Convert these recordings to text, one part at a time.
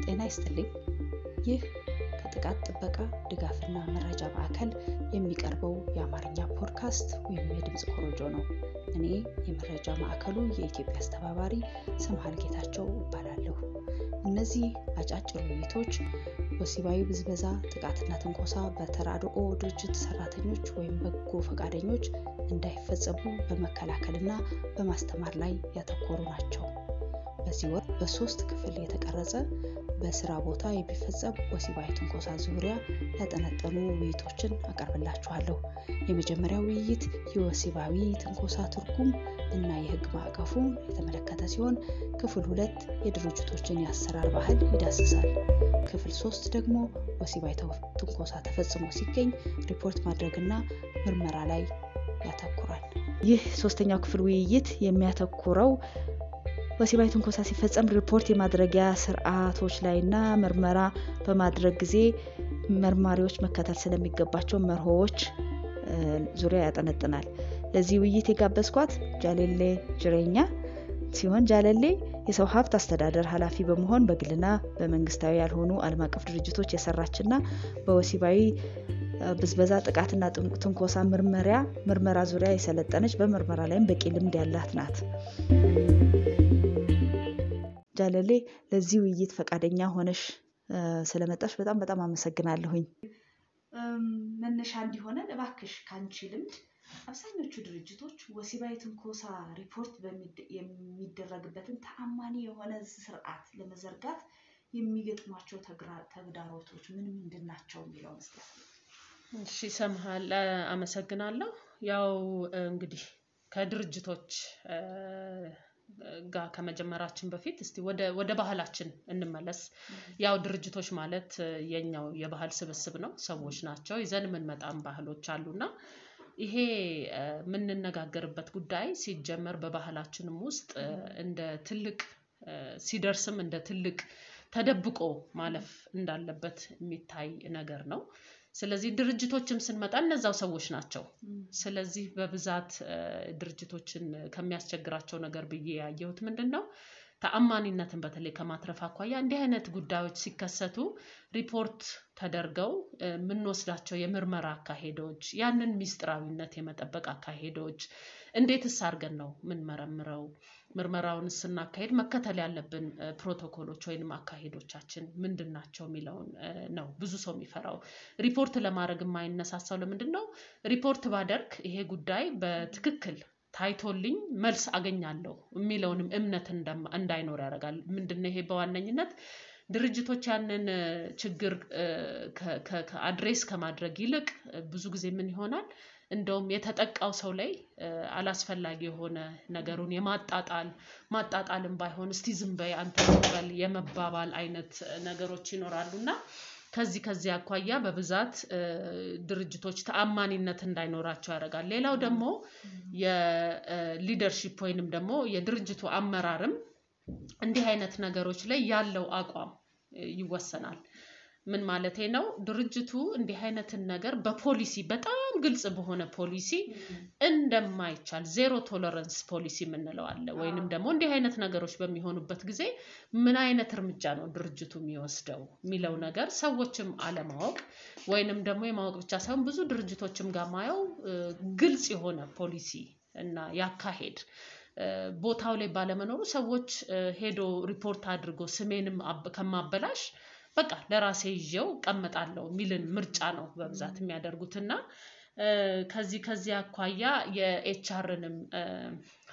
ጤና ይስጥልኝ። ይህ ከጥቃት ጥበቃ ድጋፍና መረጃ ማዕከል የሚቀርበው የአማርኛ ፖድካስት ወይም የድምጽ ኮሮጆ ነው። እኔ የመረጃ ማዕከሉ የኢትዮጵያ አስተባባሪ ሰምሃል ጌታቸው እባላለሁ። እነዚህ አጫጭር ውይይቶች ወሲባዊ ብዝበዛ፣ ጥቃትና ትንኮሳ በተራድኦ ድርጅት ሰራተኞች ወይም በጎ ፈቃደኞች እንዳይፈጸሙ በመከላከልና በማስተማር ላይ ያተኮሩ ናቸው። በዚህ ወር በ3 ክፍል የተቀረጸ በስራ ቦታ የሚፈጸም ወሲባዊ ትንኮሳ ዙሪያ ያጠነጠኑ ውይይቶችን አቀርብላችኋለሁ። የመጀመሪያው ውይይት የወሲባዊ ትንኮሳ ትርጉም እና የህግ ማዕቀፉን የተመለከተ ሲሆን፣ ክፍል 2 የድርጅቶችን የአሰራር ባህል ይዳስሳል። ክፍል 3 ደግሞ ወሲባዊ ትንኮሳ ተፈጽሞ ሲገኝ ሪፖርት ማድረግና ምርመራ ላይ ያተኩራል። ይህ 3ኛው ክፍል ውይይት የሚያተኩረው ወሲባዊ ትንኮሳ ሲፈጸም ሪፖርት የማድረጊያ ስርዓቶች ላይና ምርመራ በማድረግ ጊዜ መርማሪዎች መከተል ስለሚገባቸው መርሆዎች ዙሪያ ያጠነጥናል። ለዚህ ውይይት የጋበዝኳት ጃሌሌ ጅሬኛ ሲሆን ጃሌሌ የሰው ሀብት አስተዳደር ኃላፊ በመሆን በግልና በመንግስታዊ ያልሆኑ ዓለም አቀፍ ድርጅቶች የሰራችና በወሲባዊ ብዝበዛ፣ ጥቃትና ትንኮሳ ምርመራ ዙሪያ የሰለጠነች በምርመራ ላይም በቂ ልምድ ያላት ናት። ጃሌሌ ለዚህ ውይይት ፈቃደኛ ሆነሽ ስለመጣሽ በጣም አመሰግናለሁኝ። መነሻ እንዲሆነን እባክሽ ካንቺ ልምድ አብዛኞቹ ድርጅቶች ወሲባዊ ትንኮሳ ሪፖርት የሚደረግበትን ተአማኒ የሆነ ስርዓት ለመዘርጋት የሚገጥሟቸው ተግዳሮቶች ምንድን ናቸው የሚለውን እስኪ። እሺ ሰምሃል፣ አመሰግናለሁ። ያው እንግዲህ ከድርጅቶች ጋር ከመጀመራችን በፊት እስቲ ወደ ባህላችን እንመለስ። ያው ድርጅቶች ማለት የኛው የባህል ስብስብ ነው፣ ሰዎች ናቸው። ይዘን የምንመጣም ባህሎች አሉና ይሄ የምንነጋገርበት ጉዳይ ሲጀመር በባህላችንም ውስጥ እንደ ትልቅ ሲደርስም እንደ ትልቅ ተደብቆ ማለፍ እንዳለበት የሚታይ ነገር ነው። ስለዚህ ድርጅቶችም ስንመጣ እነዛው ሰዎች ናቸው። ስለዚህ በብዛት ድርጅቶችን ከሚያስቸግራቸው ነገር ብዬ ያየሁት ምንድነው ተአማኒነትን በተለይ ከማትረፍ አኳያ እንዲህ አይነት ጉዳዮች ሲከሰቱ ሪፖርት ተደርገው የምንወስዳቸው የምርመራ አካሄዶች፣ ያንን ሚስጥራዊነት የመጠበቅ አካሄዶች እንዴትስ አድርገን ነው የምንመረምረው፣ ምርመራውን ስናካሄድ መከተል ያለብን ፕሮቶኮሎች ወይንም አካሄዶቻችን ምንድናቸው የሚለውን ነው ብዙ ሰው የሚፈራው። ሪፖርት ለማድረግ የማይነሳሳው ለምንድነው? ሪፖርት ባደርግ ይሄ ጉዳይ በትክክል ታይቶልኝ መልስ አገኛለሁ የሚለውንም እምነት እንዳይኖር ያደርጋል። ምንድነው ይሄ? በዋነኝነት ድርጅቶች ያንን ችግር ከአድሬስ ከማድረግ ይልቅ ብዙ ጊዜ ምን ይሆናል፣ እንደውም የተጠቃው ሰው ላይ አላስፈላጊ የሆነ ነገሩን ማጣጣልም ባይሆን እስቲ ዝም በይ አንተ በል የመባባል አይነት ነገሮች ይኖራሉና ከዚህ አኳያ በብዛት ድርጅቶች ተአማኒነት እንዳይኖራቸው ያደርጋል። ሌላው ደግሞ የሊደርሺፕ ወይንም ደግሞ የድርጅቱ አመራርም እንዲህ አይነት ነገሮች ላይ ያለው አቋም ይወሰናል። ምን ማለቴ ነው? ድርጅቱ እንዲህ አይነትን ነገር በፖሊሲ በጣም ግልጽ በሆነ ፖሊሲ እንደማይቻል ዜሮ ቶለራንስ ፖሊሲ የምንለው አለ። ወይንም ደግሞ እንዲህ አይነት ነገሮች በሚሆኑበት ጊዜ ምን አይነት እርምጃ ነው ድርጅቱ የሚወስደው የሚለው ነገር ሰዎችም አለማወቅ ወይንም ደግሞ የማወቅ ብቻ ሳይሆን ብዙ ድርጅቶችም ጋር ማየው ግልጽ የሆነ ፖሊሲ እና ያካሄድ ቦታው ላይ ባለመኖሩ ሰዎች ሄዶ ሪፖርት አድርጎ ስሜንም ከማበላሽ በቃ ለራሴ ይዤው ቀመጣለሁ የሚልን ምርጫ ነው በብዛት የሚያደርጉትና ከዚህ አኳያ የኤችአርንም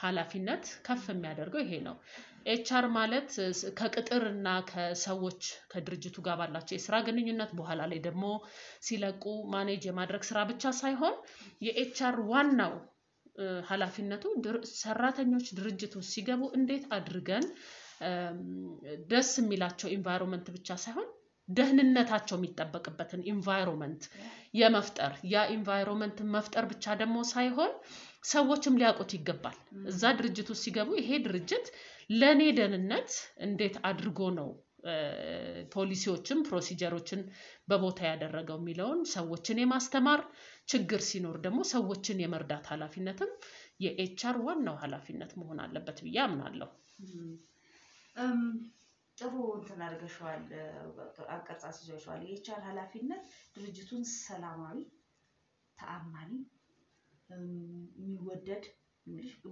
ኃላፊነት ከፍ የሚያደርገው ይሄ ነው። ኤችአር ማለት ከቅጥርና ከሰዎች ከድርጅቱ ጋር ባላቸው የስራ ግንኙነት በኋላ ላይ ደግሞ ሲለቁ ማኔጅ የማድረግ ስራ ብቻ ሳይሆን የኤችአር ዋናው ኃላፊነቱ ሰራተኞች ድርጅቱ ሲገቡ እንዴት አድርገን ደስ የሚላቸው ኢንቫይሮንመንት ብቻ ሳይሆን ደህንነታቸው የሚጠበቅበትን ኢንቫይሮንመንት የመፍጠር ያ ኢንቫይሮንመንት መፍጠር ብቻ ደግሞ ሳይሆን ሰዎችም ሊያውቁት ይገባል። እዛ ድርጅቱ ሲገቡ ይሄ ድርጅት ለኔ ደህንነት እንዴት አድርጎ ነው ፖሊሲዎችን ፕሮሲጀሮችን በቦታ ያደረገው የሚለውን ሰዎችን የማስተማር ችግር ሲኖር ደግሞ ሰዎችን የመርዳት ኃላፊነትም የኤችአር ዋናው ኃላፊነት መሆን አለበት ብዬ አምናለሁ። ጥሩ እንትን አድርገሽዋል አቀርጻስ ይዘሽዋል የኤችአር ኃላፊነት ድርጅቱን ሰላማዊ ተአማኒ የሚወደድ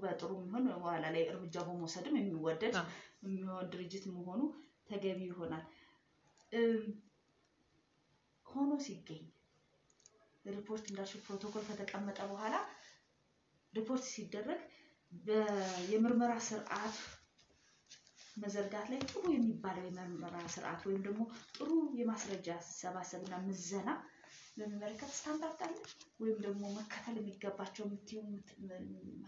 በጥሩ ምን በኋላ ላይ እርምጃ በመውሰድም የሚወደድ የሚሆን ድርጅት መሆኑ ተገቢ ይሆናል ሆኖ ሲገኝ ሪፖርት እንዳልሽ ፕሮቶኮል ከተቀመጠ በኋላ ሪፖርት ሲደረግ የምርመራ ስርዓት መዘርጋት ላይ ጥሩ የሚባለው የምርመራ ስርዓት ወይም ደግሞ ጥሩ የማስረጃ ሰባሰብና ምዘና ለመመልከት ስታንዳርድ አለ ወይም ደግሞ መከተል የሚገባቸው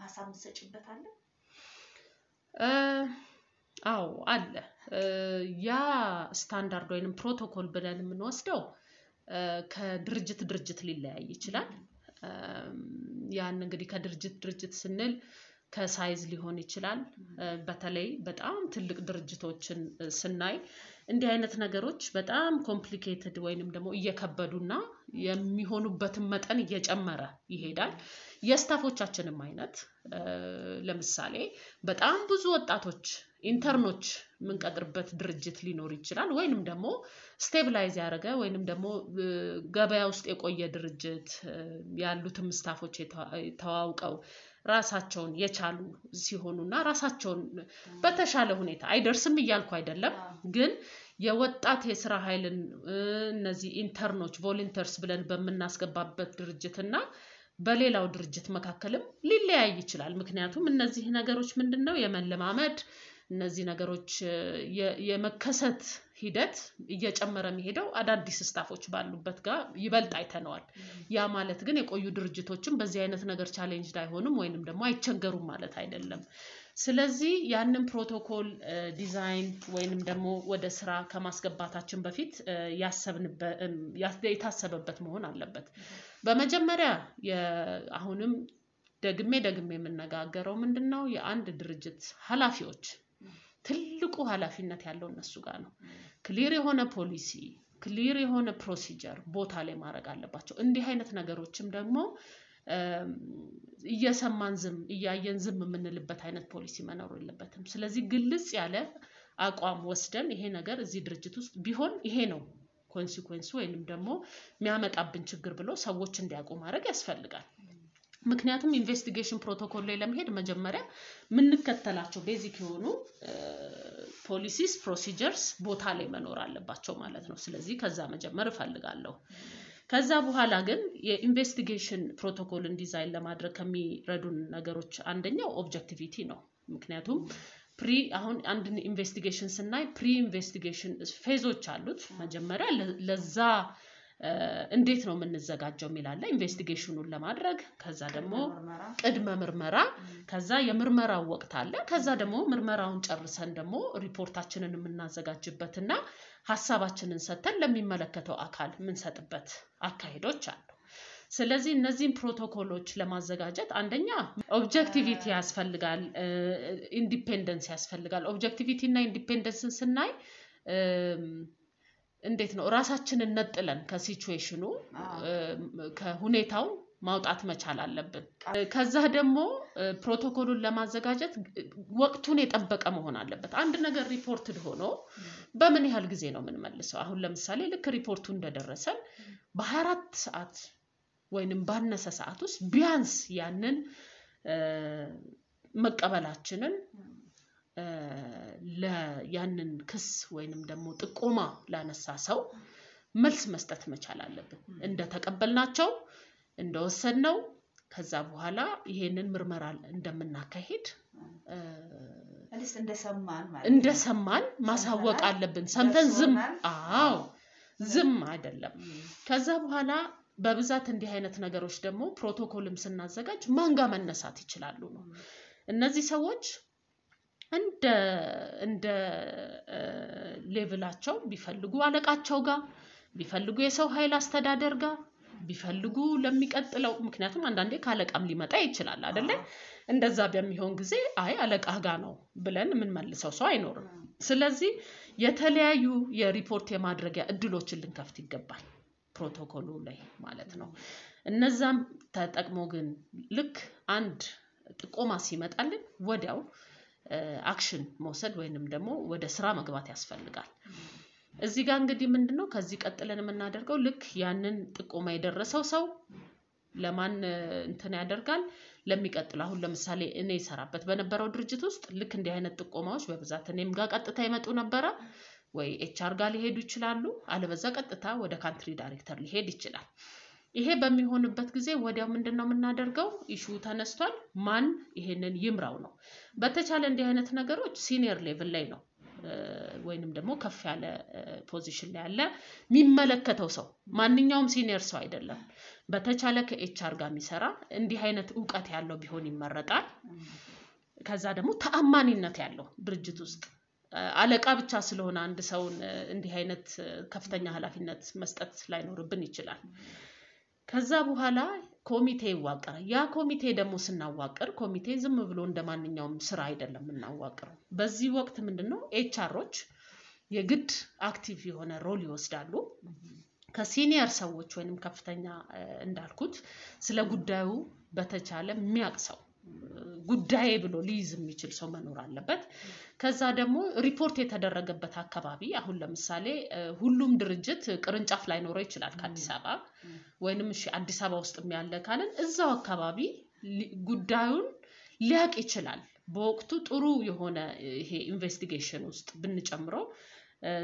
ሐሳብ መስጭበት አለ አዎ አለ ያ ስታንዳርድ ወይንም ፕሮቶኮል ብለን የምንወስደው ከድርጅት ሊለያይ ይችላል ያን እንግዲህ ከድርጅት ስንል ከሳይዝ ሊሆን ይችላል በተለይ በጣም ትልቅ ድርጅቶችን ስናይ እንዲህ አይነት ነገሮች በጣም ኮምፕሊኬትድ ወይንም ደግሞ እየከበዱና የሚሆኑበትን መጠን እየጨመረ ይሄዳል የስታፎቻችንም አይነት ለምሳሌ በጣም ብዙ ወጣቶች ኢንተርኖች ምንቀጥርበት ድርጅት ሊኖር ይችላል ወይንም ደግሞ ስቴብላይዝ ያደረገ ወይንም ደግሞ ገበያ ውስጥ የቆየ ድርጅት ያሉትም ስታፎች ተዋውቀው ራሳቸውን የቻሉ ሲሆኑና ራሳቸውን በተሻለ ሁኔታ አይደርስም ይያልኩ አይደለም ግን የወጣት የሥራ ኃይልን እነዚህ ኢንተርኖች ቮለንተርስ ብለን በመናስገባበት ድርጅትና በሌላው ድርጅት መካከልም ሊለያይ ይችላል ምክንያቱም እነዚህ ነገሮች ምንድነው የመለማመድ እነዚህ ነገሮች የመከሰት ሂደት እየጨመረ የሚሄደው አዳዲስ ስታፎች ባሉበት ጋር ይበልጥ አይተነዋል ያ ማለት ግን የቆዩ ድርጅቶችም በዚህ አይነት ነገር ቻሌንጅ አይሆኑም ወይንም ደግሞ አይቸገሩም ማለት አይደለም ስለዚህ ያንን ፕሮቶኮል ዲዛይን ወይንም ደግሞ ወደ ስራ ከማስገባታችን በፊት የታሰበበት መሆን አለበት በመጀመሪያ አሁንም ደግሜ የምነጋገረው ምንድነው የአንድ ድርጅት ኃላፊዎች ትልቁ ኃላፊነት ያለው እነሱ ጋር ነው ክሊር የሆነ ፖሊሲ ክሊር የሆነ ፕሮሲጀር ቦታ ላይ ማድረግ አለባቸው እንዲህ አይነት ነገሮችም ደግሞ እየሰማን እያየን የምንልበት አይነት ፖሊሲ መኖር የለበትም ስለዚህ ግልጽ ያለ አቋም ወስደን ይሄ ነገር እዚህ ድርጅት ውስጥ ቢሆን ይሄ ነው ኮንሲኩዌንሱ ወይንም ደግሞ የሚያመጣብን ችግር ብሎ ሰዎች እንዲያውቁ ማድረግ ያስፈልጋል ምክንያቱም ኢንቨስቲጌሽን ፕሮቶኮል ላይ ለመሄድ መጀመሪያ ምንከተላቸው ቤዚክ የሆኑ ፖሊሲስ ፕሮሲጀርስ ቦታ ላይ መኖር አለባቸው ማለት ነው ስለዚህ ከዛ መጀመር እፈልጋለሁ ከዛ በኋላ ግን የኢንቨስቲጌሽን ፕሮቶኮልን ዲዛይን ለማድረግ ከሚረዱን ነገሮች አንደኛው ኦብጀክቲቪቲ ነው ምክንያቱም አሁን አንድ ኢንቨስቲጌሽን ስናይ ፕሪ ኢንቨስቲጌሽን ፌዞች አሉት መጀመሪያ ለዛ እንዴት ነው የምንዘጋጀው ሚላለ ኢንቨስቲጌሽኑን ለማድረግ ከዛ ደግሞ ቅድመ ምርመራ ከዛ የምርመራው ወቅት አለ ከዛ ደግሞ ምርመራውን ጨርሰን ደግሞ ሪፖርታችንን የምናዘጋጅበትና ሐሳባችንን ሰተን ለሚመለከተው አካል ምንሰጥበት አካሄዶች አሉ ስለዚህ እነዚህን ፕሮቶኮሎች ለማዘጋጀት አንደኛ ኦብጀክቲቪቲ ያስፈልጋል ኢንዲፔንደንስ ያስፈልጋል ኦብጀክቲቪቲ እና ኢንዲፔንደንስን ስናይ እንዴት ነው ራሳችንን ነጥለን ከሲቹዌሽኑ ከሁኔታው ማውጣት መቻል አለብን ከዛ ደግሞ ፕሮቶኮሉን ለማዘጋጀት ወቅቱን የጠበቀ መሆን አለበት አንድ ነገር ሪፖርትድ ሆኖ በምን ያህል ጊዜ ነው የምንመልሰው አሁን ለምሳሌ ልክ ሪፖርቱ እንደደረሰን በ24 ሰዓት ወይንም ባነሰ ሰዓት ውስጥ ቢያንስ ያንን መቀበላችንን ያንን ክስ ወይንም ደግሞ ጥቆማ ላነሳ ሰው መልስ መስጠት መቻል አለብን እንደተቀበልናቸው እንደወሰድነው ከዛ በኋላ ይሄንን ምርመራ እንደምናካሂድ አለስ እንደሰማን ማሳወቅ አለብን ሰምተን ዝም አይደለም ከዛ በኋላ በብዛት እንዲህ አይነት ነገሮች ደግሞ ፕሮቶኮልም ስናዘጋጅ ማንጋ መነሳት ይችላሉ ነው እነዚህ ሰዎች እንደ ሌቭላቸው ቢፈልጉ አለቃቸው ጋር ቢፈልጉ የሰው ኃይል አስተዳደር ጋር ቢፈልጉ ለሚቀጥለው ምክንያቱም አንዳንዴ ካለቃም ሊመጣ ይችላል አይደለ እንደዛ በሚሆን ጊዜ አለቃ ጋር ነው ብለን ምን መልሰው ሰው አይኖርም ስለዚህ የተለያዩ የሪፖርት የማድረጊያ እድሎችን ልንከፍት ይገባል ፕሮቶኮሉ ላይ ማለት ነው እነዛም ተጠቅሞ ግን ልክ አንድ ጥቆማ ሲመጣልን ወዲያው አክሽን መውሰድ ወይንም ደግሞ ወደ ስራ መግባት ያስፈልጋል። እዚህ ጋር እንግዲህ ምንድነው ከዚህ ቀጥለን የምናደርገው ልክ ያንን ጥቆማ የደረሰው ሰው ለማን እንትን ያደርጋል ለሚቀጥለው አሁን ለምሳሌ እኔ ሰራበት በነበረው ድርጅት ውስጥ ልክ እንዲህ አይነት ጥቆማዎች በብዛት እኔም ጋር ቀጥታ ይመጡ ነበር ወይ ኤችአር ጋር ሊሄዱ ይችላሉ አለበዛ ቀጥታ ወደ ካንትሪ ዳይሬክተር ሊሄድ ይችላል። ይሄ በሚሆንበት ጊዜ ወዲያው ምንድነው የምናደርገው ኢሹ ተነስቷል ማን ይሄንን ይምራው ነው። በተቻለ እንዲህ አይነት ነገሮች ሲኒየር ሌቭል ላይ ነው ወይንም ደግሞ ከፍ ያለ ፖዚሽን ላይ ያለ የሚመለከተው ሰው ማንኛውም ሲኒየር ሰው አይደለም በተቻለ ከኤችአር ጋር የሚሰራ እንዲህ አይነት ዕውቀት ያለው ቢሆን ይመረጣል። ከዛ ደግሞ ተአማኒነት ያለው ድርጅት ውስጥ አለቃ ብቻ ስለሆነ አንድ ሰው እንዲህ አይነት ከፍተኛ ኃላፊነት መስጠት ላይኖርብን ይችላል። ከዛ በኋላ ኮሚቴ ይዋቀራል። ያ ኮሚቴ ደግሞ ስናዋቀር ኮሚቴ ዝም ብሎ እንደማንኛውም ስራ አይደለም እናዋቀረው። በዚህ ወቅት ምንድነው ኤችአሮች የግድ አክቲቭ የሆነ ሮል ይወስዳሉ። ከሲኒየር ሰዎች ወይንም ከፍተኛ እንዳልኩት ስለ ጉዳዩ በተቻለ የሚያቅሰው ጉዳይ ብሎ ሊይዝ የሚችል ሰው መኖር አለበት። ከዛ ደግሞ ሪፖርት የተደረገበት አካባቢ አሁን ለምሳሌ ሁሉም ድርጅት ቅርንጫፍ ላይ ኖሮ ይችላል ከአዲስ አበባ ወይንም እሺ አዲስ አበባ ውስጥ የሚያለ ካለን እዛው አካባቢ ጉዳዩን ሊያቅ ይችላል። በወቅቱ ጥሩ የሆነ ይሄ ኢንቨስቲጌሽን ውስጥ ብንጨምረው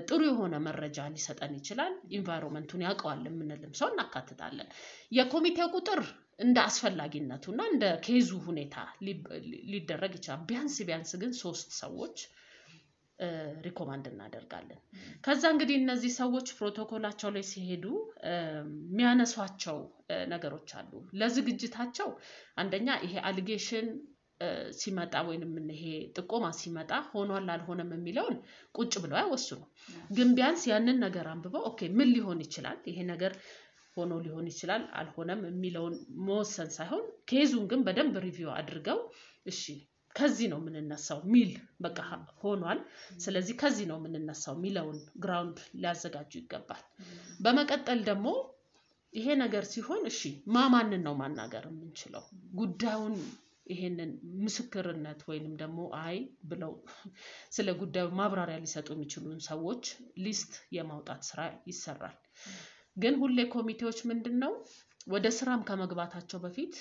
ጥሩ የሆነ መረጃ ሊሰጠን ይችላል። ኢንቫይሮንመንቱን ያውቀዋል የምንልም ሰው እናካትታለን። የኮሚቴው ቁጥር እንደ አስፈላጊነቱና እንደ ኬዙ ሁኔታ ሊደረግ ይችላል። ቢያንስ ግን 3 ሰዎች ሪኮማንድ እናደርጋለን። ከዛ እንግዲህ እነዚህ ሰዎች ፕሮቶኮላቸው ላይ ሲሄዱ የሚያነሷቸው ነገሮች አሉ። ለዝግጅታቸው አንደኛ ይሄ አሊጌሽን ሲመጣ ወይንም ይሄ ጥቆማ ሲመጣ ሆኗል አልሆነም የሚለውን ቁጭ ብለው አይወስኑ። ግን ቢያንስ ያንን ነገር አንብበው ኦኬ ምን ሊሆን ይችላል ይሄ ነገር ሆኖ ሊሆን ይችላል አልሆነም የሚለውን መወሰን ሳይሆን ኬዙን ግን በደንብ ሪቪው አድርገው እሺ ከዚህ ነው የምንነሳው ሚል በቃ ሆኗል ስለዚህ ከዚህ ነው የምንነሳው ሚለውን ግራውንድ ሊያዘጋጁ ይገባል። በመቀጠል ደግሞ ይሄ ነገር ሲሆን እሺ ማንን ነው ማናገር የምንችለው ጉዳዩን ይሄንን ምስክርነት ወይንም ደግሞ አይ ብለው ስለ ጉዳዩ ማብራሪያ ሊሰጡ የሚችሉን ሰዎች ሊስት የማውጣት ስራ ይሰራል። ግን ሁሌ ኮሚቴዎች ምንድነው ወደ ስራም ከመግባታቸው በፊት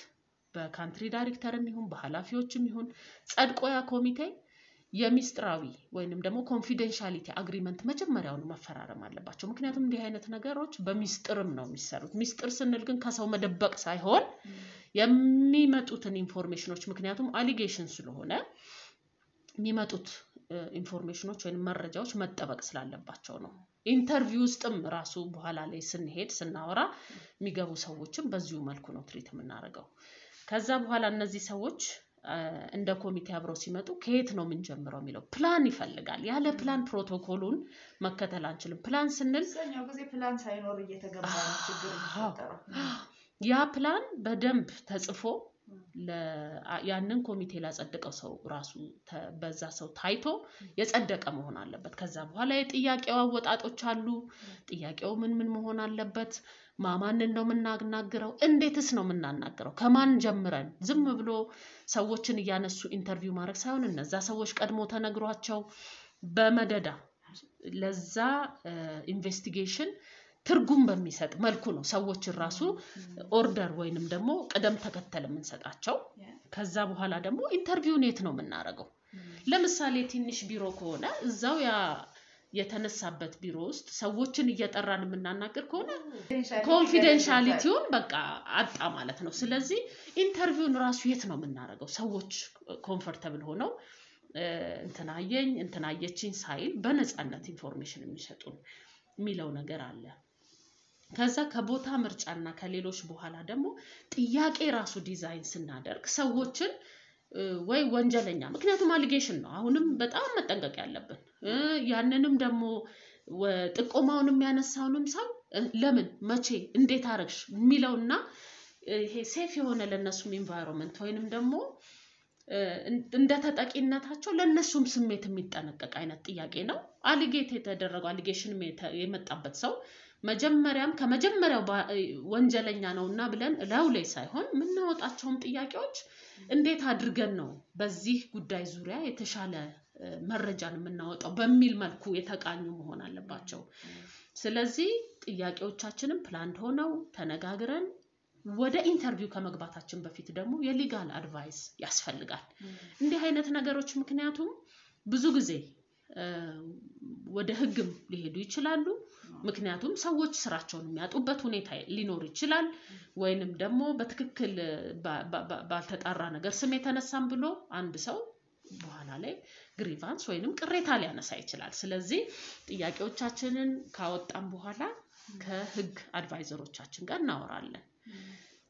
በካንትሪ ዳይሬክተርም ይሁን በኃላፊዎችም ይሁን ጸድቆ ያ ኮሚቴ የሚስጥራዊ ወይንም ደግሞ ኮንፊደንሻሊቲ አግሪመንት መጀመሪያውን መፈራረም አለባቸው። ምክንያቱም እንዲህ አይነት ነገሮች በሚስጥርም ነው የሚሰሩት። ሚስጥር ስንል ግን ከሰው መደበቅ ሳይሆን የሚመጡትን ኢንፎርሜሽኖች ምክንያቱም አሊጌሽን ስለሆነ የሚመጡት ኢንፎርሜሽኖች ወይንም መረጃዎች መጠበቅ ስላለባቸው ነው። ኢንተርቪው ውስጥም ራሱ በኋላ ላይ ስንሄድ ስናወራ የሚገቡ ሰዎችም በዚሁ መልኩ ነው ትሪት የምናደርገው። ከዛ በኋላ እነዚህ ሰዎች እንደ ኮሚቴ አብረው ሲመጡ ከየት ነው የምንጀምረው የሚለው ፕላን ይፈልጋል። ያለ ፕላን ፕሮቶኮሉን መከተል አንችልም። ፕላን ስንል ሰኛው ጊዜ ፕላን ሳይኖር እየተገባ ነው ችግር የሚፈጠረው። ያ ፕላን በደንብ ተጽፎ ያንን ኮሚቴ ላጸደቀው ሰው ራሱ በዛ ሰው ታይቶ የጸደቀ መሆን አለበት። ከዛ በኋላ የጥያቄው አወጣጦች አሉ። ጥያቄው ምን መሆን አለበት? ማንን ነው የምናናግረው? እንዴትስ ነው የምናናግረው? ከማን ጀምረን ዝም ብሎ ሰዎችን እያነሱ ኢንተርቪው ማድረግ ሳይሆን እነዛ ሰዎች ቀድሞ ተነግሯቸው በመደዳ ለዛ ኢንቨስቲጌሽን ትርጉም በሚሰጥ መልኩ ነው ሰዎችን ራሱ ኦርደር ወይንም ደግሞ ቀደም ተከተል የምንሰጣቸው። ከዛ በኋላ ደግሞ ኢንተርቪውን የት ነው የምናደርገው? ለምሳሌ ትንሽ ቢሮ ከሆነ እዛው ያ የተነሳበት ቢሮ ውስጥ ሰዎችን እየጠራን የምናናገር ከሆነ ኮንፊደንሻሊቲውን በቃ አጣ ማለት ነው። ስለዚህ ኢንተርቪውን ራሱ የት ነው የምናደርገው? ሰዎች ኮምፎርታብል ሆነው እንትናየችኝ ሳይል በነፃነት ኢንፎርሜሽን የሚሰጡን የሚለው ነገር አለ። ከዛ ከቦታ ምርጫና ከሌሎች በኋላ ደግሞ ጥያቄ ራሱ ዲዛይን ስናደርግ ሰዎችን ወይ ወንጀለኛ ምክንያቱም አሊጌሽን ነው አሁንም በጣም መጠንቀቅ ያለብን። ያንንም ደግሞ ጥቆማውን የሚያነሳውንም ሰው ለምን መቼ እንዴት አረግሽ የሚለውና ይሄ ሴፍ የሆነ ለነሱም ኢንቫይሮንመንት ወይንም ደግሞ እንደ ተጠቂነታቸው ለነሱም ስሜት የሚጠነቀቅ አይነት ጥያቄ ነው። አሊጌት የተደረገው አሊጌሽን የመጣበት ሰው መጀመሪያም ከመጀመሪያው ወንጀለኛ ነውና ብለን ለውላይ ሳይሆን ምናወጣቸውም ጥያቄዎች እንዴት አድርገን ነው በዚህ ጉዳይ ዙሪያ የተሻለ መረጃን የምናወጣው በሚል መልኩ የተቃኙ መሆን አለባቸው ስለዚህ ጥያቄዎቻችንን ፕላን ሆነው ተነጋግረን ወደ ኢንተርቪው ከመግባታችን በፊት ደግሞ የሊጋል አድቫይስ ያስፈልጋል እንዲህ አይነት ነገሮች ምክንያቱም ብዙ ጊዜ ወደ ህግም ሊሄዱ ይችላሉ ምክንያቱም ሰዎች ስራቸውን የሚያጡበት ሁኔታ ሊኖር ይችላል ወይንም ደግሞ በትክክል ባልተጣራ ነገር ስም የተነሳም ብሎ አንድ ሰው በኋላ ላይ ግሪቫንስ ወይንም ቅሬታ ሊያነሳ ይችላል ስለዚህ ጥያቄዎቻችንን ካወጣን በኋላ ከህግ አድቫይዘሮቻችን ጋር እናወራለን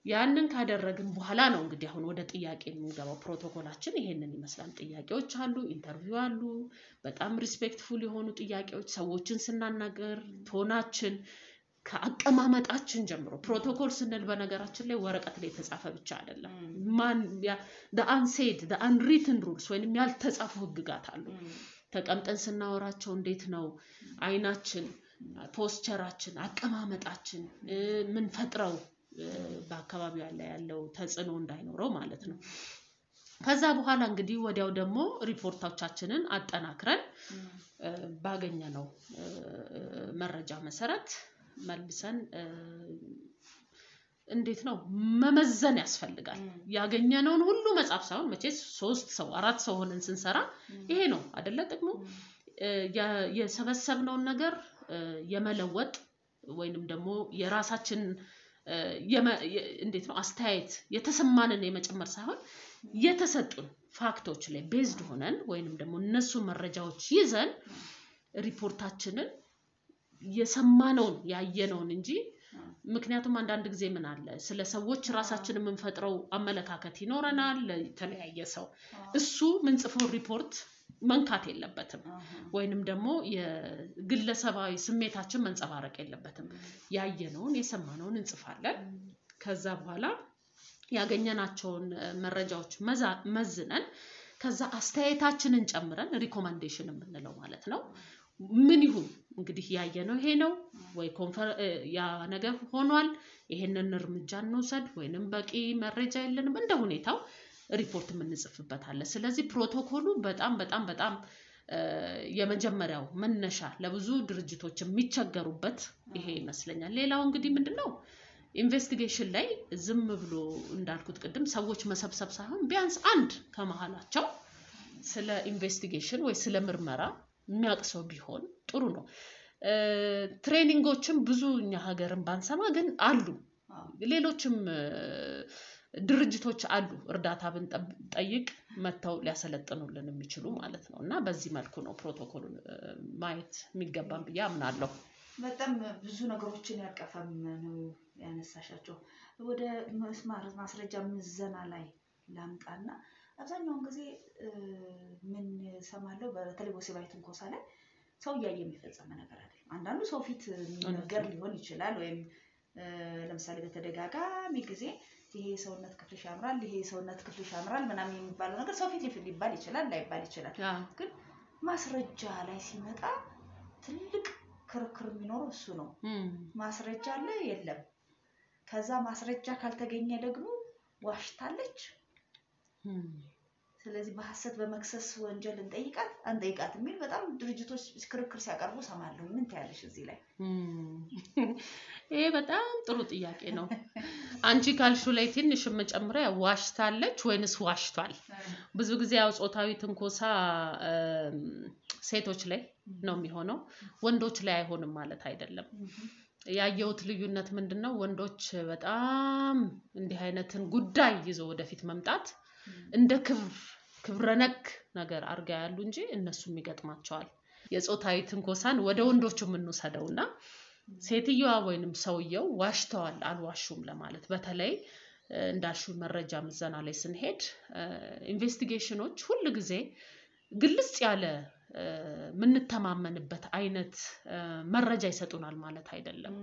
ያንን ካደረግን በኋላ ነው እንግዲህ አሁን ወደ ጥያቄ የምንገባው ፕሮቶኮላችን ይሄንን ይመስላል ጥያቄዎች አሉ ኢንተርቪው አሉ በጣም ሪስፔክትፉል የሆኑ ጥያቄዎች ሰዎችን ስናናገር ቶናችን ከአቀማመጣችን ጀምሮ ፕሮቶኮል ስንል በነገራችን ላይ ወረቀት ላይ የተጻፈ ብቻ አይደለም ማን the unsaid the unwritten rules ወይንም ያልተጻፉ ህግጋት አሉ ተቀምጠን ስናወራቸው እንዴት ነው አይናችን ፖስቸራችን አቀማመጣችን ምን ፈጥረው በአካባቢው ያለው ተጽዕኖ እንዳይኖረው ማለት ነው ከዛ በኋላ እንግዲህ ወዲያው ደግሞ ሪፖርቶቻችንን አጠናክረን ባገኘነው መረጃ መሰረት መልሰን እንዴት ነው መመዘን ያስፈልጋል ያገኘነውን ሁሉ መጻፍ ሳይሆን መቼስ 3 ሰው 4 ሰው ሆነን ስንሰራ ይሄ ነው አይደለ ጥቅሙ የሰበሰብነው ነገር የመለወጥ ወይንም ደግሞ የራሳችን እንዴት ነው አስተያየት የተሰማንን የመጨመር ሳይሆን የተሰጡን ፋክቶች ላይ ቤዝድ ሆነን ወይንም ደግሞ እነሱ መረጃዎች ይዘን ሪፖርታችንን የሰማነውን ያየነውን እንጂ ምክንያቱም አንዳንድ ጊዜ ምን አለ ስለ ሰዎች ራሳችንን የምንፈጥረው አመለካከት ይኖረናል ለተለያየ ሰው እሱ ምን ጽፈው ሪፖርት መንካት የለበትም ወይንም ደግሞ የግለሰባዊ ስሜታችን መንጸባረቅ የለበትም ያየነውን የሰማነውን እንጽፋለን ከዛ በኋላ ያገኘናቸውን መረጃዎች መዝነን ከዛ አስተያየታችንን ጨምረን ሪኮመንዴሽን የምንለው ማለት ነው ምን ይሁን እንግዲህ ያየነው ይሄ ነው ወይ ያ ነገር ሆኗል ይሄንን እርምጃ እንውሰድ ወይንም በቂ መረጃ የለንም እንደ ሁኔታው ሪፖርት የምንጽፍበት አለ ስለዚህ ፕሮቶኮሉ በጣም የመጀመሪያው መነሻ ለብዙ ድርጅቶች የሚቸገሩበት ይሄ ይመስለኛል ሌላው እንግዲህ ምንድነው ኢንቨስቲጌሽን ላይ ዝም ብሎ እንዳልኩት ቅድም ሰዎች መሰብሰብ ሳይሆን ቢያንስ አንድ ከመሃላቸው ስለ ኢንቨስቲጌሽን ወይ ስለ ምርመራ የሚያቅሰው ቢሆን ጥሩ ነው ትሬኒንጎችም ብዙ እኛ ሀገርን ባንሰማ ግን አሉ ሌሎችም ድርጅቶች አሉ እርዳታ ብንጠይቅ መተው ሊያሰለጥኑልን የሚችሉ ማለት ነውና በዚህ መልኩ ነው ፕሮቶኮሉን ማየት የሚገባን ብዬ አምናለሁ በጣም ብዙ ነገሮችን ያቀፈም ነው ያነሳሻቸው ወደ ማስረጃ ምዘና ላይ ላምጣና አብዛኛውን ጊዜ ምን ሰማለው በተለይ ወሲባዊ ትንኮሳ ላይ ሰው ያየ የሚፈጸም ነገር አይደለም አንዳንዱ ሰው ፊት ነገር ሊሆን ይችላል ወይም ለምሳሌ በተደጋጋሚ ጊዜ ይሄ ሰውነት ክፍልሽ ያምራል ይሄ ሰውነት ክፍልሽ ያምራል ምናምን የሚባለው ነገር ሰው ፊት ሊባል ይችላል ላይባል ይችላል ግን ማስረጃ ላይ ሲመጣ ትልቅ ክርክር የሚኖረው እሱ ነው ማስረጃ አለ የለም ከዛ ማስረጃ ካልተገኘ ደግሞ ዋሽታለች ስለዚህ በሐሰት በመክሰስ ወንጀል እንጠይቃት የሚል በጣም ድርጅቶች ክርክር ሲያቀርቡ ሰማለሁ ምን ታያለሽ እዚህ ላይ ይሄ በጣም ጥሩ ጥያቄ ነው አንቺ ካልሹ ላይ ትንሽ መጨመሪያ ዋሽታለች ወይንስ ዋሽቷል ብዙ ጊዜ ያው ጾታዊ ትንኮሳ ሴቶች ላይ ነው የሚሆነው ወንዶች ላይ አይሆንም ማለት አይደለም ያየውት ልዩነት ምንድነው ወንዶች በጣም እንዲህ አይነትን ጉዳይ ይዞ ወደፊት መምጣት እንደ ክብረነክ ነገር አርጋ ያሉ እንጂ እነሱም ይገጥማቸዋል የጾታዊ ትንኮሳን ወደ ወንዶቹ ምንወሰደውና ሴትየዋ ወይንም ሰውየው ዋሽተዋል አልዋሹም ለማለት በተለይ እንዳልሹ መረጃ ምዘና ላይ ስንሄድ ኢንቨስቲጌሽኖች ሁሉ ጊዜ ግልጽ ያለ ምንተማመንበት አይነት መረጃ ይሰጡናል ማለት አይደለም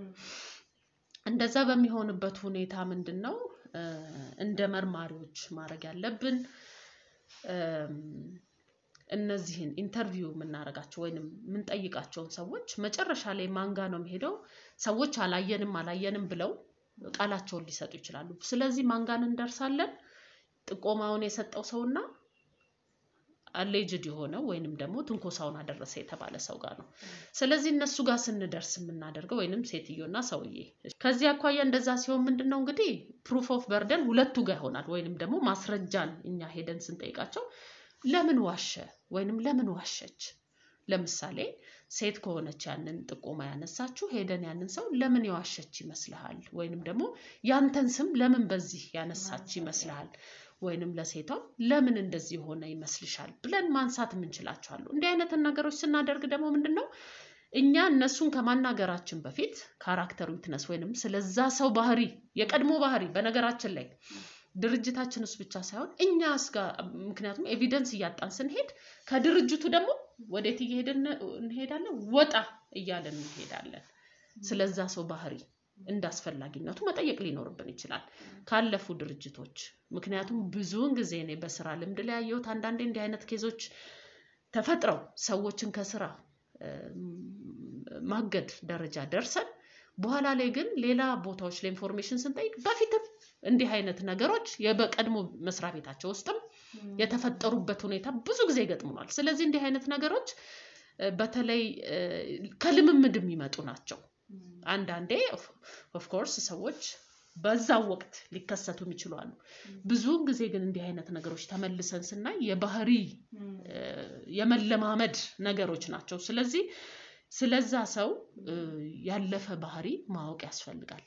እንደዛ በሚሆንበት ሁኔታ ምንድነው እንደ መርማሪዎች ማድረግ ያለብን እነዚህን ኢንተርቪው የምናረጋቸው ወይንም ምን ጠይቃቸውን ሰዎች መጨረሻ ላይ ማንጋ ነው የሚሄደው ሰዎች አላየንም ብለው ቃላቸውን ሊሰጡ ይችላሉ ስለዚህ ማንጋን እንደርሳለን ጥቆማውን የሰጠው ሰውና አሌጅድ የሆነው ወይንም ደግሞ ትንኮሳውን አደረሰ የተባለ ሰው ጋር ነው ስለዚህ እነሱ ጋር ስንደርስ የምናደርገው ወይንም ሴትዮና ሰውዬ ከዚህ አኳያ እንደዛ ሲሆን ምንድነው እንግዲህ ፕሩፍ ኦፍ በርደን ሁለቱ ጋር ይሆናል ወይንም ደግሞ ማስረጃን እኛ ሄደን ስንጠይቃቸው ለምን ዋሸ ወይንም ለምን ዋሸች ለምሳሌ ሴት ከሆነች ያንን ጥቆማ ያነሳችሁ ሄደን ያንን ሰው ለምን ያዋሸች ይመስልሃል ወይንም ደግሞ ያንተን ስም ለምን በዚህ ያነሳች ይመስልሃል ወይንም ለሴቷ ለምን እንደዚህ ሆነ ይመስልሻል ብለን ማንሳት እንችላቸዋል እንዲህ አይነት ነገሮች ስናደርግ ደግሞ ምንድነው እኛ እነሱን ከማናገራችን በፊት ካራክተር ዊትነስ ወይንም ስለዛ ሰው ባህሪ የቀድሞ ባህሪ በነገራችን ላይ ድርጅታችን ውስጥ ብቻ ሳይሆን እኛስ ጋር ምክንያቱም ኤቪደንስ እያጣን ስንሄድ ከድርጅቱ ደግሞ ወዴት እንሄዳለን ወጣ እያለን እንሄዳለን ስለዛ ሰው ባህሪ እንዳስፈላጊነቱ መጠየቅ ሊኖርብን ይችላል ካለፉ ድርጅቶች ምክንያቱም ብዙውን ጊዜ እኔ በስራ ልምድ ላይ ያየሁት አንዳንዴ እንዲህ አይነት ኬዞች ተፈጥረው ሰዎችን ከስራ ማገድ ደረጃ ደርሰን በኋላ ላይ ግን ሌላ ቦታዎች ላይ ኢንፎርሜሽን ስንጠይቅ በፊትም እንዲህ አይነት ነገሮች የበቀድሞ መስሪያ ቤታቸው ውስጥም የተፈጠሩበት ሁኔታ ብዙ ጊዜ ይገጥሙናል ስለዚህ እንዲህ አይነት ነገሮች በተለይ ከልምምድ የሚመጡ ናቸው አንዳንዴ ኦፍ ኮርስ ሰዎች በዛው ወቅት ሊከሰቱ ይችላሉ ብዙውን ጊዜ ግን እንዲህ አይነት ነገሮች ተመልሰን ስናይ የባህሪ የመለማመድ ነገሮች ናቸው ስለዚህ ስለዛ ሰው ያለፈ ባህሪ ማወቅ ያስፈልጋል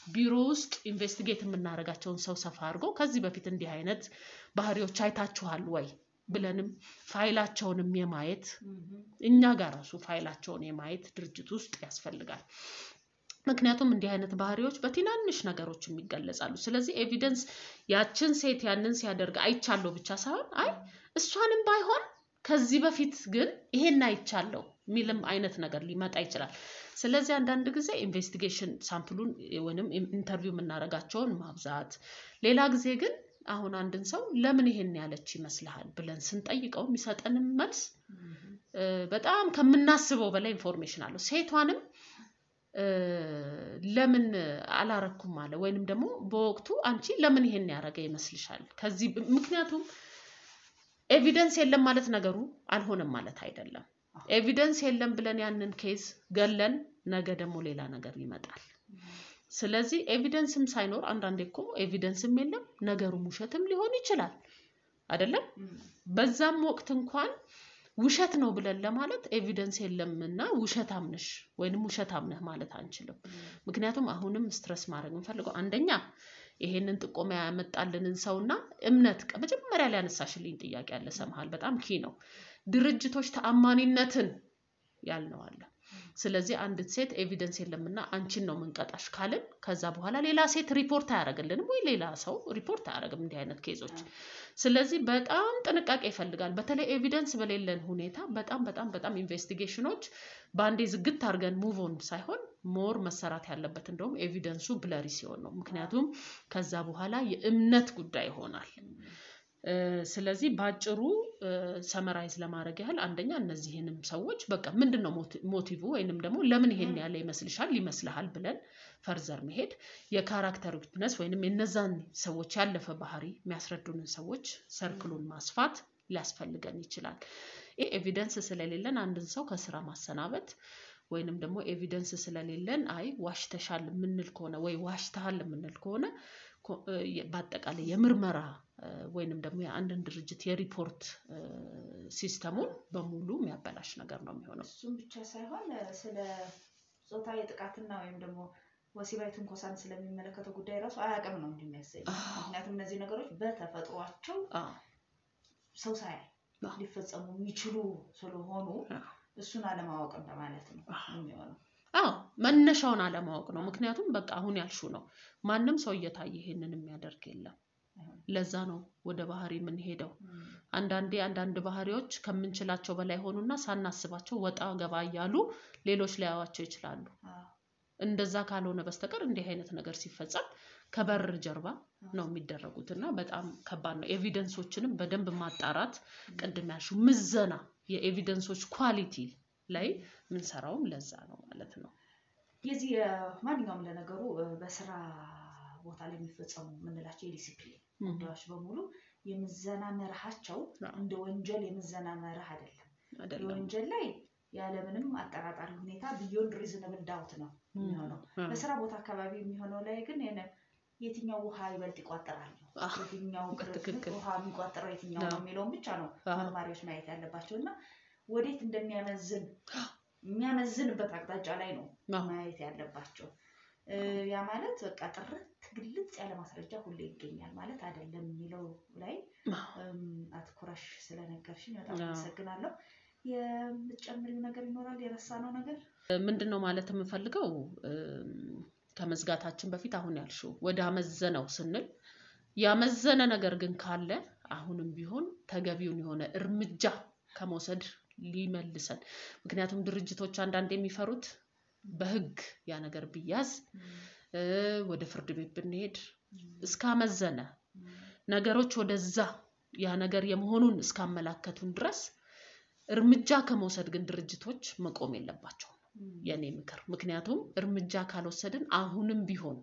ቢሮ ውስጥ ኢንቨስቲጌት የምናረጋቸውን ሰው ሰፋ አድርጎ ከዚህ በፊት እንዲህ አይነት ባህሪዎች አይታችኋል ወይ ብለንም ፋይላቸውንም የማየት እኛ ጋር ራሱ ፋይላቸውን የማየት ድርጅት ውስጥ ያስፈልጋል ምክንያቱም እንዲህ አይነት ባህሪዎች በትናንሽ ነገሮች የሚገለጻሉ ስለዚህ ኤቪደንስ ያችን ሴት ያንን ሲያደርግ አይቻለው ብቻ ሳይሆን አይ እሷንም ባይሆን ከዚህ በፊት ግን ይሄን አይቻለው ሚልም አይነት ነገር ሊመጣ ይችላል ስለዚህ አንዳንድ ጊዜ ኢንቨስቲጌሽን ሳምፕሉን ወይንም ኢንተርቪው የምናረጋቸውን ማብዛት ሌላ ጊዜ ግን አሁን አንድን ሰው ለምን ይሄን ያለች ይመስልሃል ብለን ስንጠይቀው የሚሰጠን መልስ በጣም ከምናስበው በላይ ኢንፎርሜሽን አለው ሴቷንም ለምን አላረኩም አለ ወይንም ደግሞ በወቅቱ አንቺ ለምን ይሄን ያረገ ይመስልሻል ከዚህ ምክንያቱም ኤቪደንስ የለም ማለት ነገሩ አልሆነም ማለት አይደለም ኤቪደንስ የለም ብለን ያንን ኬዝ ገለን ነገ ደግሞ ሌላ ነገር ይመጣል ስለዚህ ኤቪደንስም ሳይኖር አንዳንዴ ኤቪደንስም የለም ነገሩ ውሸትም ሊሆን ይችላል አይደለም በዛም ወቅት እንኳን ውሸት ነው ብለን ለማለት ኤቪደንስ የለምና ውሸታም ነሽ ወይንም ውሸታም ነህ ማለት አንችልም ምክንያቱም አሁንም ስትረስ ማድረግ እንፈልገው አንደኛ ይሄንን ጥቆማ ያመጣልንን ሰውና እምነት መጀመሪያ ላይ ያነሳሽልኝ ጥያቄ ያለ ሰማሃል በጣም ኪ ነው ድርጅቶች ተአማኒነትን ያልነው አለ ስለዚህ አንድ ሴት ኤቪደንስ የለምና አንቺን ነው መንቀጣሽ ካልን ከዛ በኋላ ሌላ ሴት ሪፖርት አያረግልንም ወይ ሌላ ሰው ሪፖርት አያረግም እንዲህ አይነት ኬዞች ስለዚህ በጣም ጥንቃቄ ይፈልጋል በተለይ ኤቪደንስ በሌለን ሁኔታ በጣም ኢንቨስቲጌሽኖች ባንዴ ዝግት አርገን ሙቭ ኦን ሳይሆን ሞር መሰራት ያለበት እንደውም ኤቪደንሱ ብለሪ ሲሆን ነው ምክንያቱም ከዛ በኋላ የእምነት ጉዳይ ይሆናል ስለዚህ ባጭሩ ሰመራይዝ ለማድረግ ያህል አንደኛ እነዚህንም ሰዎች በቃ ምንድነው ሞቲቭ ወይንም ደግሞ ለምን ይሄን ያለ ይመስልሃል ብለን ፈርዘር መሄድ የካራክተር ዊትነስ ወይንም የነዛን ሰዎች ያለፈ ባህሪ የሚያስረዱንን ሰዎች ሰርክሉን ማስፋት ሊያስፈልገን ይችላል ኤቪደንስ ስለሌለን አንድን ሰው ከስራ ማሰናበት ወይንም ደግሞ ኤቪደንስ ስለሌለን አይ ዋሽተሻል ምንል ከሆነ ወይ ዋሽተሃል ምንል ከሆነ በአጠቃላይ የምርመራ ወይንም ደግሞ የአንድን ድርጅት የሪፖርት ሲስተሙን በሙሉ የሚያበላሽ ነገር ነው የሚሆነው እሱም ብቻ ሳይሆን ስለ ጾታዊ ጥቃትና ወይም ደግሞ ወሲባዊ ትንኮሳን ስለሚመለከተው ጉዳይ ራሱ አያውቅም ነው እንደሚያሰኝ ምክንያቱም እነዚህ ነገሮች በተፈጥሯቸው ሰው ሳይ ሊፈጸሙ የሚችሉ ስለሆኑ እሱን አለማወቅ እንደማለት ነው የሚሆነው መነሻውን አለማወቅ ነው ምክንያቱም በቃ አሁን ያልሹ ነው ማንንም ሰው እየታየ ይሄንን የሚያደርግ የለም ለዛ ነው ወደ ባህሪ ምን ሄደው አንዳንድ ባህሪዎች ከምንችላቸው በላይ ሆኑና ሳናስባቸው ወጣ ገባ ያሉ ሌሎች ሊያዋቸው ይችላሉ እንደዛ ካልሆነ በስተቀር እንዲህ አይነት ነገር ሲፈጸም ከበር ጀርባ ነው የሚደረጉትና በጣም ከባድ ነው። ኤቪደንሶችንም በደንብ ማጣራት ቅድም ያልሽው ምዘና የኤቪደንሶች ኳሊቲ ላይ ምን ሰራው ለዛ ነው ማለት ነው። የዚህ ማንኛውም ለነገሩ በስራ ቦታ ላይ የሚፈጸሙ ምንላቸው የዲሲፕሊን ጉዳዮች በሙሉ የምዘና መርሃቸው እንደ ወንጀል የምዘና መርህ አይደለም። ወንጀል ላይ ያለምንም አጠራጣሪ ሁኔታ ቢዮንድ ሪዝነብል ዳውት ነው የሚሆነው። በስራ ቦታ አካባቢ የሚሆነው ላይ ግን የትኛው ውሃ ይበልጥ ይቋጠራል ነው የትኛው ውሃ የሚቋጠረው የትኛው ነው የሚለውን ብቻ ነው መርማሪዎች ማየት ያለባቸውና ወዴት የሚያመዝንበት አቅጣጫ ላይ ነው ማየት ያለባቸው። ያ ማለት በቃ ጥርት ግልጽ ያለ ማስረጃ ሁሌ ይገኛል ማለት አይደለም የሚለው ላይ አትኩረሽ ስለነገርሽኝ በጣም አመሰግናለሁ። የምትጨምሪው ነገር ይኖራል የረሳነው ነገር? ምንድነው ማለት የምፈልገው ከመዝጋታችን በፊት አሁን ያልሽው ወደ አመዘነው ስንል ያመዘነ ነገር ግን ካለ አሁንም ቢሆን ተገቢውን የሆነ እርምጃ ከመውሰድ ሊመልሰን። ምክንያቱም ድርጅቶች አንዳንድ የሚፈሩት በህግ ያ ነገር ቢያዝ ወደ ፍርድ ቤት ብንሄድ እስካመዘነ ነገሮች ወደዛ ያ ነገር የመሆኑን እስካመላከቱን ድረስ እርምጃ ከመውሰድ ግን ድርጅቶች መቆም የለባቸውም የኔ ምክር። ምክንያቱም እርምጃ ካልወሰድን አሁንም ቢሆን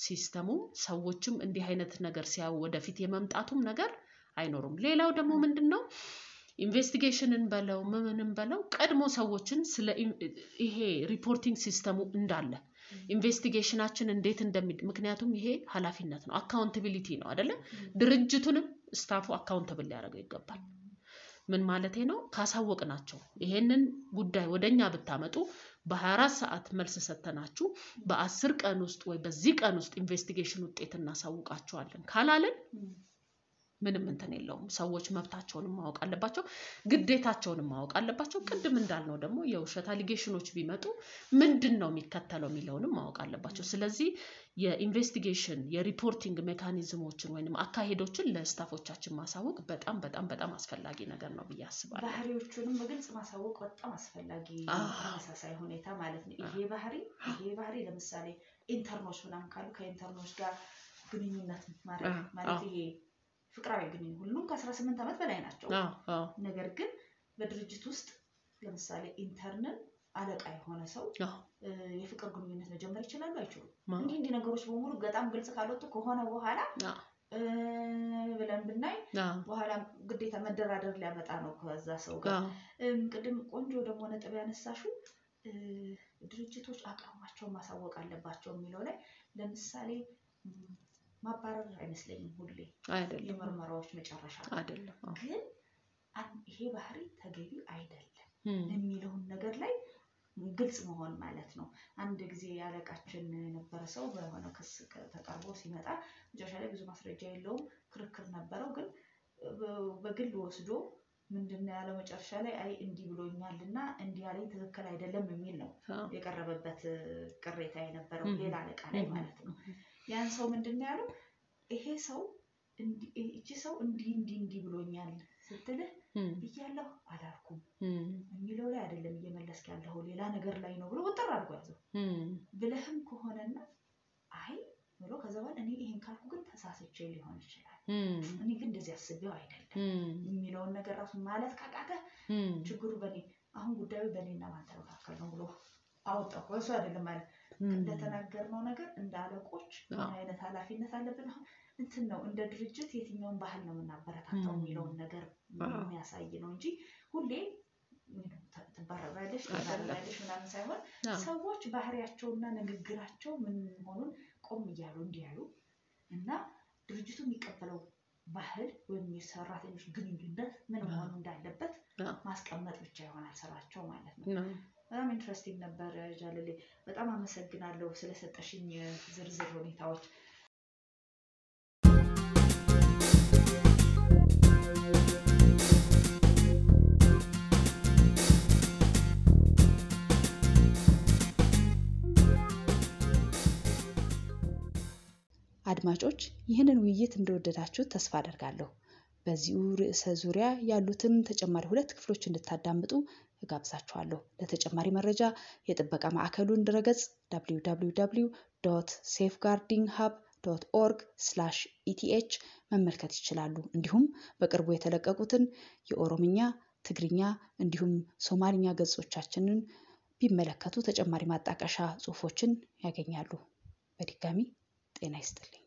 ሲስተሙ ሰዎችም እንዲህ አይነት ነገር ሲያው ወደፊት የመምጣቱም ነገር አይኖርም። ሌላው ደግሞ ምንድነው ኢንቨስቲጌሽንን በለው ምንም በለው ቀድሞ ሰዎችን ስለ ይሄ ሪፖርቲንግ ሲስተሙ እንዳለ ኢንቨስቲጌሽናችን እንዴት ምክንያቱም ይሄ ኃላፊነት ነው አካውንታቢሊቲ ነው አይደለ? ድርጅቱንም ስታፉ አካውንታብል ሊያደርገው ይገባል። ምን ማለቴ ነው? ካሳወቅናቸው ይሄንን ጉዳይ ወደኛ ብታመጡ በ24 ሰዓት መልስ ሰተናችሁ በ10 ቀን ውስጥ ወይ በዚህ ቀን ውስጥ ኢንቨስቲጌሽን ውጤት እናሳውቃቸዋለን ካላለን ምንም እንትን የለውም። ሰዎች መብታቸውንም ማወቅ አለባቸው ግዴታቸውንም ማወቅ አለባቸው። ቅድም እንዳልነው ደግሞ የውሸት አሊጌሽኖች ቢመጡ ምንድነው የሚከተለው የሚለውንም ማወቅ አለባቸው። ስለዚህ የኢንቨስቲጌሽን የሪፖርቲንግ ሜካኒዝሞችን ወይንም አካሄዶችን ለስታፎቻችን ማሳወቅ በጣም በጣም በጣም አስፈላጊ ነገር ነው ብዬ አስባለሁ። ባህሪዎቹንም በግልጽ ማሳወቅ በጣም አስፈላጊ ተመሳሳይ ሁኔታ ማለት ነው። ይሄ ባህሪ ለምሳሌ ኢንተርኖች ምናምን ካሉ ከኢንተርኖች ጋር ግንኙነት ማድረግ ማለት ይሄ ፍቅራዊ ግንኙነት ሁሉም ከ18 ዓመት በላይ ናቸው። ነገር ግን በድርጅት ውስጥ ለምሳሌ ኢንተርንን አለቃ የሆነ ሰው የፍቅር ግንኙነት መጀመር ይችላል አይችሉም? እንዲህ ነገሮች በሙሉ በጣም ግልጽ ካልወጡ ከሆነ በኋላ ብለን ብናይ በኋላ ግዴታ መደራደር ሊያመጣ ነው ከዛ ሰው ጋር። ቅድም ቆንጆ ደግሞ ነጥብ ያነሳሽው ድርጅቶች አቋማቸውን ማሳወቅ አለባቸው የሚለው ላይ ለምሳሌ ማባረር አይመስለኝም ሁሌ አይደለም የመርመራዎች መጨረሻ አይደለም። ግን ይሄ ባህሪ ተገቢ አይደለም የሚለው ነገር ላይ ግልጽ መሆን ማለት ነው። አንድ ጊዜ ያለቃችን የነበረ ሰው በሆነ ክስ ተቀርቦ ሲመጣ መጨረሻ ላይ ብዙ ማስረጃ የለውም ክርክር ነበረው። ግን በግል ወስዶ ምንድነው ያለው መጨረሻ ላይ አይ እንዲህ ብሎኛልና እንዲህ ያለኝ ትክክል አይደለም የሚል ነው የቀረበበት ቅሬታ የነበረው ሌላ አለቃ ላይ ማለት ነው። ያን ሰው ምንድነው ያለው ይሄ ሰው እቺ ሰው እንዲህ ብሎኛል ስትልህ እያለሁ አላልኩም የሚለው ላይ አይደለም እየመለስክ ያለው ሌላ ነገር ላይ ነው ብሎ ወጥራ አድርጎ ያዘው። ብለህም ከሆነና አይ ብሎ ከዛ በኋላ እኔ ይሄን ካልኩ ግን ተሳስቼ ሊሆን ይችላል እኔ ግን እንደዚህ አስቤው አይደለም የሚለው ነገር ራሱ ማለት ካቃተ ችግሩ በኔ አሁን ጉዳዩ በኔና ባንተ መካከል ነው ብሎ አወጣው። ወይስ አይደለም ማለት እንደተናገርነው ነገር እንዳለቆች ምን አይነት ኃላፊነት አለብን አሁን እንትን ነው እንደ ድርጅት የትኛውን ባህል ነው የምናበረታታው የሚለውን ነገር የሚያሳይ ነው እንጂ ሁሌ ተባረራለሽ ምናምን ሳይሆን ሰዎች ባህሪያቸውና ንግግራቸው ምን መሆኑን ቆም እያሉ እንዲያሉ እና ድርጅቱ የሚቀበለው ባህል ወይም የሰራተኞች ግንኙነት ምን መሆን እንዳለበት ማስቀመጥ ብቻ ይሆናል ስራቸው ማለት ነው። በጣም ኢንትረስቲንግ ነበር ጃለሌ። በጣም አመሰግናለሁ ስለሰጠሽኝ ዝርዝር ሁኔታዎች። አድማጮች ይህንን ውይይት እንደወደዳችሁ ተስፋ አደርጋለሁ። በዚሁ ርዕሰ ዙሪያ ያሉትን ተጨማሪ 2 ክፍሎች እንድታዳምጡ እጋብዛችኋለሁ። ለተጨማሪ መረጃ የጥበቃ ማዕከሉን ድረገጽ www.safeguardinghub.org/eth መመልከት ይችላሉ። እንዲሁም በቅርቡ የተለቀቁትን የኦሮምኛ፣ ትግርኛ እንዲሁም ሶማሊኛ ገጾቻችንን ቢመለከቱ ተጨማሪ ማጣቀሻ ጽሑፎችን ያገኛሉ። በድጋሚ ጤና ይስጥልኝ።